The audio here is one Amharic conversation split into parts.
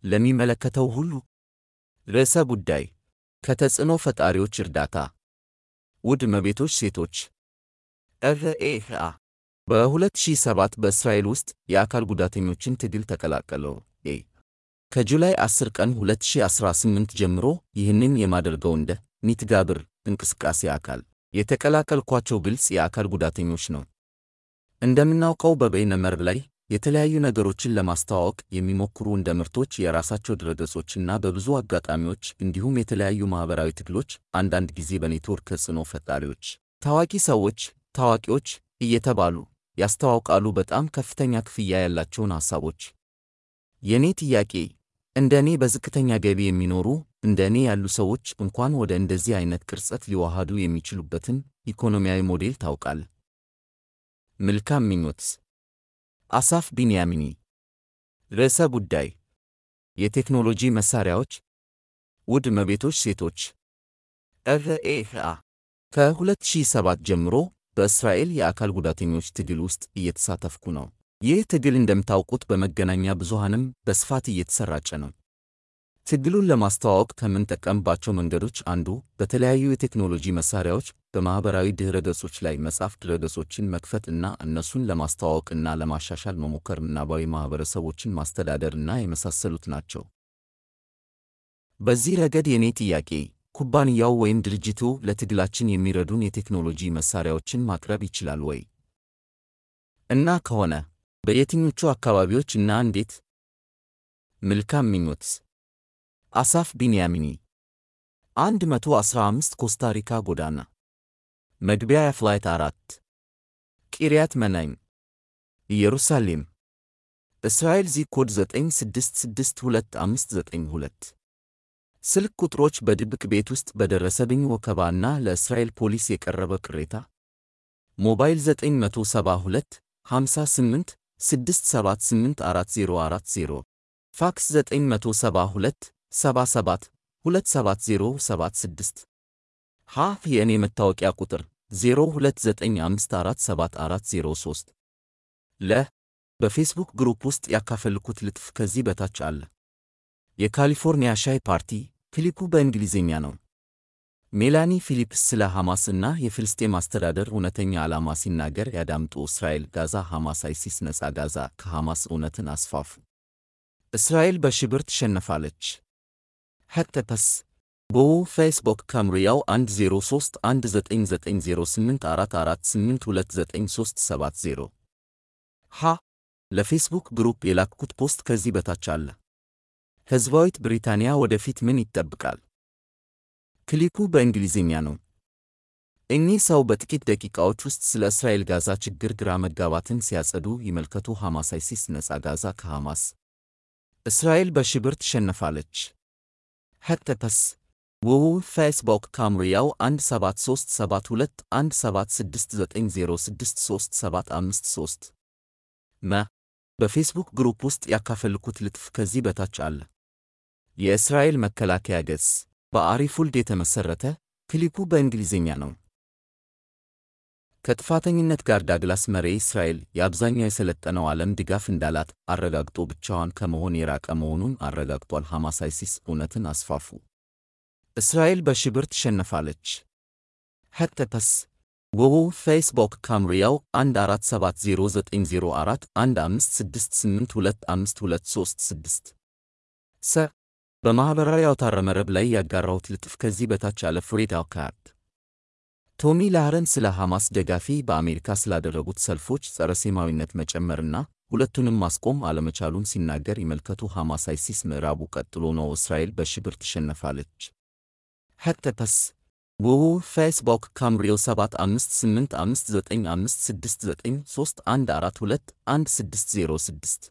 ለሚመለከተው ሁሉ ርዕሰ ጉዳይ ከተጽዕኖ ፈጣሪዎች እርዳታ ውድ እመቤቶች ሴቶች ርኤአ በ2007 በእስራኤል ውስጥ የአካል ጉዳተኞችን ትግል ተቀላቀለው። ከጁላይ 10 ቀን 2018 ጀምሮ ይህንን የማደርገው እንደ ኒትጋብር እንቅስቃሴ አካል የተቀላቀልኳቸው ግልጽ የአካል ጉዳተኞች ነው። እንደምናውቀው በበይነ መረብ ላይ የተለያዩ ነገሮችን ለማስተዋወቅ የሚሞክሩ እንደ ምርቶች፣ የራሳቸው ድረገጾችና በብዙ አጋጣሚዎች እንዲሁም የተለያዩ ማህበራዊ ትግሎች አንዳንድ ጊዜ በኔትወርክ ተጽዕኖ ፈጣሪዎች፣ ታዋቂ ሰዎች፣ ታዋቂዎች እየተባሉ ያስተዋውቃሉ በጣም ከፍተኛ ክፍያ ያላቸውን ሐሳቦች። የኔ ጥያቄ እንደ እኔ በዝቅተኛ ገቢ የሚኖሩ እንደ እኔ ያሉ ሰዎች እንኳን ወደ እንደዚህ አይነት ቅርጸት ሊዋሃዱ የሚችሉበትን ኢኮኖሚያዊ ሞዴል ታውቃል? መልካም ምኞት። አሳፍ ቢንያሚኒ። ርዕሰ ጉዳይ የቴክኖሎጂ መሳሪያዎች። ውድ እመቤቶች ሴቶች ርኤአ ከ2007 ጀምሮ በእስራኤል የአካል ጉዳተኞች ትግል ውስጥ እየተሳተፍኩ ነው። ይህ ትግል እንደምታውቁት በመገናኛ ብዙሃንም በስፋት እየተሰራጨ ነው። ትግሉን ለማስተዋወቅ ከምንጠቀምባቸው መንገዶች አንዱ በተለያዩ የቴክኖሎጂ መሳሪያዎች በማህበራዊ ድህረ ገጾች ላይ መጻፍ፣ ድረገጾችን መክፈት እና እነሱን ለማስተዋወቅና ለማሻሻል መሞከር፣ ምናባዊ ማህበረሰቦችን ማስተዳደር እና የመሳሰሉት ናቸው። በዚህ ረገድ የኔ ጥያቄ ኩባንያው ወይም ድርጅቱ ለትግላችን የሚረዱን የቴክኖሎጂ መሳሪያዎችን ማቅረብ ይችላል ወይ? እና ከሆነ በየትኞቹ አካባቢዎች እና እንዴት? መልካም ምኞት። አሳፍ ቢንያሚኒ 115 ኮስታሪካ ጎዳና መግቢያ ፍላይት 4 ቂርያት መናይም ኢየሩሳሌም እስራኤል ዚፕ ኮድ 9662592 ስልክ ቁጥሮች በድብቅ ቤት ውስጥ በደረሰብኝ ወከባና ለእስራኤል ፖሊስ የቀረበ ቅሬታ ሞባይል 972 58 678 4040 ፋክስ 972 77 27076 የእኔ መታወቂያ ቁጥር 0295474403 በፌስቡክ ግሩፕ ውስጥ ያካፈልኩት ልጥፍ ከዚህ በታች አለ። የካሊፎርኒያ ሻይ ፓርቲ ክሊፑ በእንግሊዝኛ ነው። ሜላኒ ፊሊፕስ ስለ ሐማስ እና የፍልስጤም አስተዳደር እውነተኛ ዓላማ ሲናገር ያዳምጡ። እስራኤል ጋዛ ሐማስ አይሲስ ነጻ ጋዛ ከሐማስ እውነትን አስፋፉ። እስራኤል በሽብር ትሸነፋለች። ሄተፐስ ቦው ፌስቡክ ከምሪያው 10319908448293770 ለፌስቡክ ግሩፕ የላክኩት ፖስት ከዚህ በታች አለ። ሕዝባዊት ብሪታንያ ወደፊት ምን ይጠብቃል? ክሊፑ በእንግሊዝኛ ነው። እኚህ ሰው በጥቂት ደቂቃዎች ውስጥ ስለ እስራኤል ጋዛ ችግር ግራ መጋባትን ሲያጸዱ ይመልከቱ። ሐማስ አይሲስ ነጻ ጋዛ ከሐማስ እስራኤል በሽብር ትሸነፋለች። ሄተፐስ ውው ፌስቡክ ካምሪያው 173721769063753 በፌስቡክ ግሩፕ ውስጥ ያካፈልኩት ልጥፍ ከዚህ በታች አለ። የእስራኤል መከላከያ ገጽ በአሪፉልድ የተመሰረተ ክሊፑ በእንግሊዝኛ ነው። ከጥፋተኝነት ጋር ዳግላስ መሬ እስራኤል የአብዛኛው የሰለጠነው ዓለም ድጋፍ እንዳላት አረጋግጦ ብቻዋን ከመሆን የራቀ መሆኑን አረጋግጧል። ሐማስ አይሲስ እውነትን አስፋፉ። እስራኤል በሽብር ትሸነፋለች። ሄተፐስ ውው ፌስቡክ ካምሪያው 147090156825236 በማህበራዊ አውታረ መረብ ላይ ያጋራሁት ልጥፍ ከዚህ በታች አለ። ፍሬድ አልካርድ ቶሚ ላህረን ስለ ሐማስ ደጋፊ በአሜሪካ ስላደረጉት ሰልፎች ጸረ ሴማዊነት መጨመርና ሁለቱንም ማስቆም አለመቻሉን ሲናገር ይመልከቱ። ሐማስ አይሲስ ምዕራቡ ቀጥሎ ነው። እስራኤል በሽብር ትሸነፋለች። ሄተፐስ ውው ፌስቡክ ካምሪዮ 7556956931421606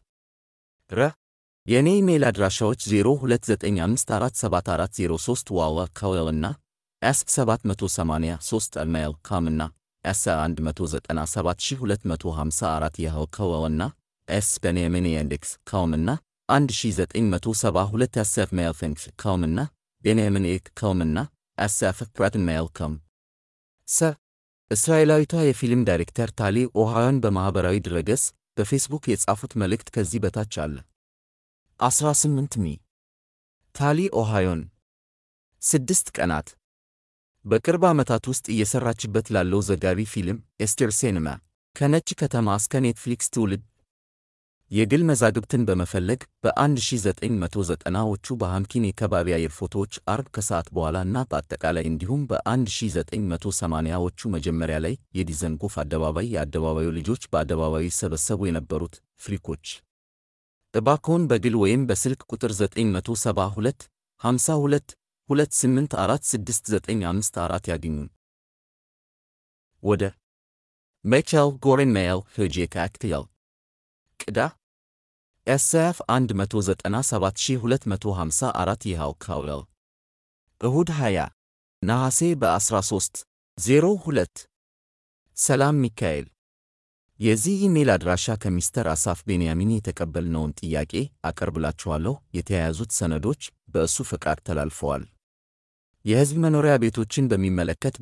የኔ ኢሜል አድራሻዎች 0295474403 ዋዋ ካዌልና s783@gmail.com እና s197254 ያህው ካዌልና s@benyamin.com እና 1972@gmail.com እና benyamin.com እና s@pratinmail.com እስራኤላዊቷ የፊልም ዳይሬክተር ታሊ ኦሃዮን በማህበራዊ ድረገጽ በፌስቡክ የጻፉት መልእክት ከዚህ በታች አለ። 18 ሚ ታሊ ኦሃዮን 6 ቀናት በቅርብ ዓመታት ውስጥ እየሰራችበት ላለው ዘጋቢ ፊልም ኤስቴር ሲኔማ ከነጭ ከተማ እስከ ኔትፍሊክስ ትውልድ የግል መዛግብትን በመፈለግ በ1990ዎቹ በሃምኪን የከባቢ አየር ፎቶዎች አርብ ከሰዓት በኋላ እና በአጠቃላይ እንዲሁም በ1980ዎቹ መጀመሪያ ላይ የዲዘንጎፍ አደባባይ የአደባባዩ ልጆች በአደባባዩ ይሰበሰቡ የነበሩት ፍሪኮች እባክዎን በግል ወይም በስልክ ቁጥር 972 52 2846954 ያግኙን። ወደ ሚቻኤል ጎሬን ሜይል ሄጄ ካክትያል ቅዳ ኤስኤፍ 197254 ይኸው ካውል እሁድ 20 ነሐሴ በ13:02 ሰላም ሚካኤል የዚህ ኢሜል አድራሻ ከሚስተር አሳፍ ቤንያሚን የተቀበልነውን ጥያቄ አቀርብላችኋለሁ። የተያያዙት ሰነዶች በእሱ ፈቃድ ተላልፈዋል። የሕዝብ መኖሪያ ቤቶችን በሚመለከት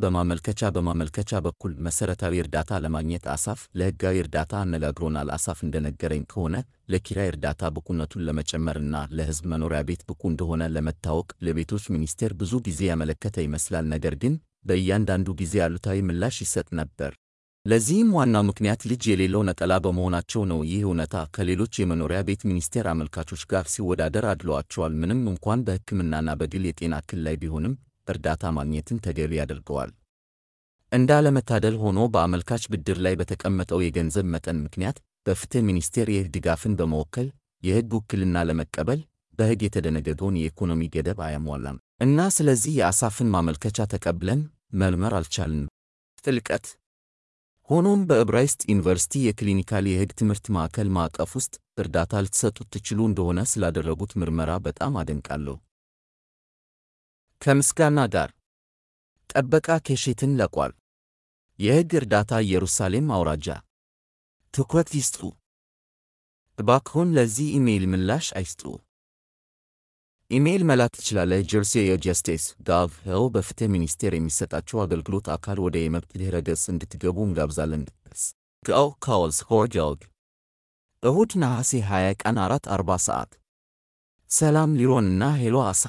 በማመልከቻ በኩል መሠረታዊ እርዳታ ለማግኘት አሳፍ ለሕጋዊ እርዳታ አነጋግሮናል። አሳፍ እንደነገረኝ ከሆነ ለኪራይ እርዳታ ብቁነቱን ለመጨመርና ለሕዝብ መኖሪያ ቤት ብቁ እንደሆነ ለመታወቅ ለቤቶች ሚኒስቴር ብዙ ጊዜ ያመለከተ ይመስላል። ነገር ግን በእያንዳንዱ ጊዜ አሉታዊ ምላሽ ይሰጥ ነበር። ለዚህም ዋናው ምክንያት ልጅ የሌለው ነጠላ በመሆናቸው ነው። ይህ እውነታ ከሌሎች የመኖሪያ ቤት ሚኒስቴር አመልካቾች ጋር ሲወዳደር አድሏቸዋል። ምንም እንኳን በሕክምናና በግል የጤና እክል ላይ ቢሆንም እርዳታ ማግኘትን ተገቢ ያደርገዋል። እንዳለመታደል ሆኖ በአመልካች ብድር ላይ በተቀመጠው የገንዘብ መጠን ምክንያት በፍትህ ሚኒስቴር የሕግ ድጋፍን በመወከል የሕግ ውክልና ለመቀበል በሕግ የተደነገገውን የኢኮኖሚ ገደብ አያሟላም እና ስለዚህ የአሳፍን ማመልከቻ ተቀብለን መርመር አልቻልንም። ጥልቀት ሆኖም በዕብራይስጥ ዩኒቨርሲቲ የክሊኒካል የሕግ ትምህርት ማዕከል ማዕቀፍ ውስጥ እርዳታ ልትሰጡት ትችሉ እንደሆነ ስላደረጉት ምርመራ በጣም አደንቃለሁ። ከምስጋና ጋር ጠበቃ ኬሼትን ለቋል። የሕግ እርዳታ ኢየሩሳሌም አውራጃ ትኩረት ይስጡ። እባክዎን ለዚህ ኢሜይል ምላሽ አይስጡ። ኢሜይል መላክ ትችላለህ። ጀርሲ የጀስቲስ ጋቭ ሄው በፍትህ ሚኒስቴር የሚሰጣቸው አገልግሎት አካል ወደ የመብት ድኅረ ገጽ እንድትገቡ እንጋብዛለን። ጋው ካውልስ ሆርጃልግ እሁድ ነሐሴ 20 ቀን 4:40 ሰዓት ሰላም ሊሮንና ሄሎ አሳ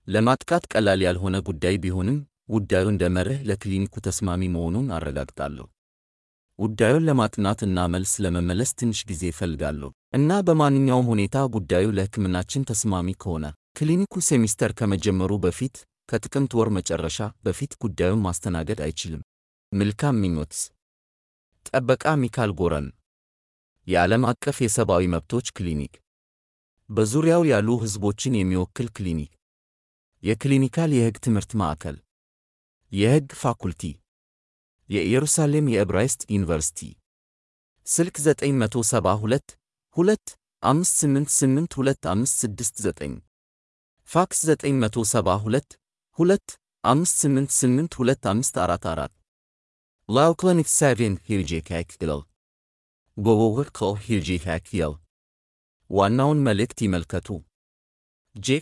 ለማጥቃት ቀላል ያልሆነ ጉዳይ ቢሆንም ጉዳዩ እንደ መርህ ለክሊኒኩ ተስማሚ መሆኑን አረጋግጣለሁ። ጉዳዩን ለማጥናትና መልስ ለመመለስ ትንሽ ጊዜ እፈልጋለሁ እና በማንኛውም ሁኔታ ጉዳዩ ለሕክምናችን ተስማሚ ከሆነ ክሊኒኩ ሴሚስተር ከመጀመሩ በፊት ከጥቅምት ወር መጨረሻ በፊት ጉዳዩን ማስተናገድ አይችልም። መልካም ምኞትስ። ጠበቃ ሚካኤል ጎረን የዓለም አቀፍ የሰብአዊ መብቶች ክሊኒክ በዙሪያው ያሉ ሕዝቦችን የሚወክል ክሊኒክ የክሊኒካል የሕግ ትምህርት ማዕከል የሕግ ፋኩልቲ የኢየሩሳሌም የዕብራይስጥ ዩኒቨርሲቲ ስልክ 972 258825569 ፋክስ 972 258825544 ላው ክሊኒክ 7 ሂርጄ ካክቲል ጎጎግር ኮ ሂርጄ ካክቲል ዋናውን መልእክት ይመልከቱ። ጄ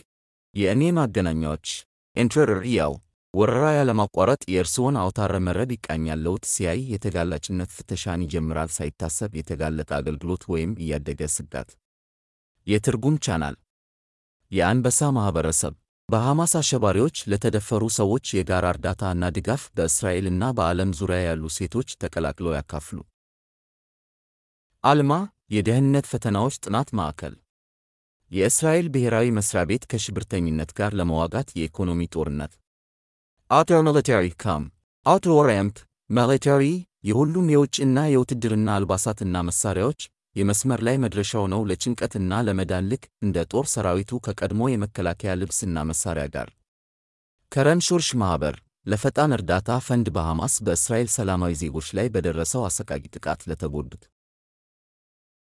የእኔ ማገናኛዎች ኢንተርሪያው ወረራ ያለማቋረጥ የእርስዎን አውታረ መረብ ይቃኛል። ለውጥ ሲያይ የተጋላጭነት ፍተሻን ይጀምራል። ሳይታሰብ የተጋለጠ አገልግሎት ወይም እያደገ ስጋት። የትርጉም ቻናል የአንበሳ ማኅበረሰብ በሐማስ አሸባሪዎች ለተደፈሩ ሰዎች የጋራ እርዳታ እና ድጋፍ በእስራኤልና በዓለም ዙሪያ ያሉ ሴቶች ተቀላቅለው ያካፍሉ። አልማ የደህንነት ፈተናዎች ጥናት ማዕከል የእስራኤል ብሔራዊ መስሪያ ቤት ከሽብርተኝነት ጋር ለመዋጋት የኢኮኖሚ ጦርነት አውተር ሚሊታሪ ካም አውተር ኦሪየንት ሚሊታሪ የሁሉም የውጭና የውትድርና አልባሳትና መሳሪያዎች የመስመር ላይ መድረሻው ነው። ለጭንቀትና ለመዳን ልክ እንደ ጦር ሰራዊቱ ከቀድሞ የመከላከያ ልብስና መሳሪያ ጋር ከረን ሹርሽ ማኅበር ለፈጣን እርዳታ ፈንድ በሐማስ በእስራኤል ሰላማዊ ዜጎች ላይ በደረሰው አሰቃቂ ጥቃት ለተጎዱት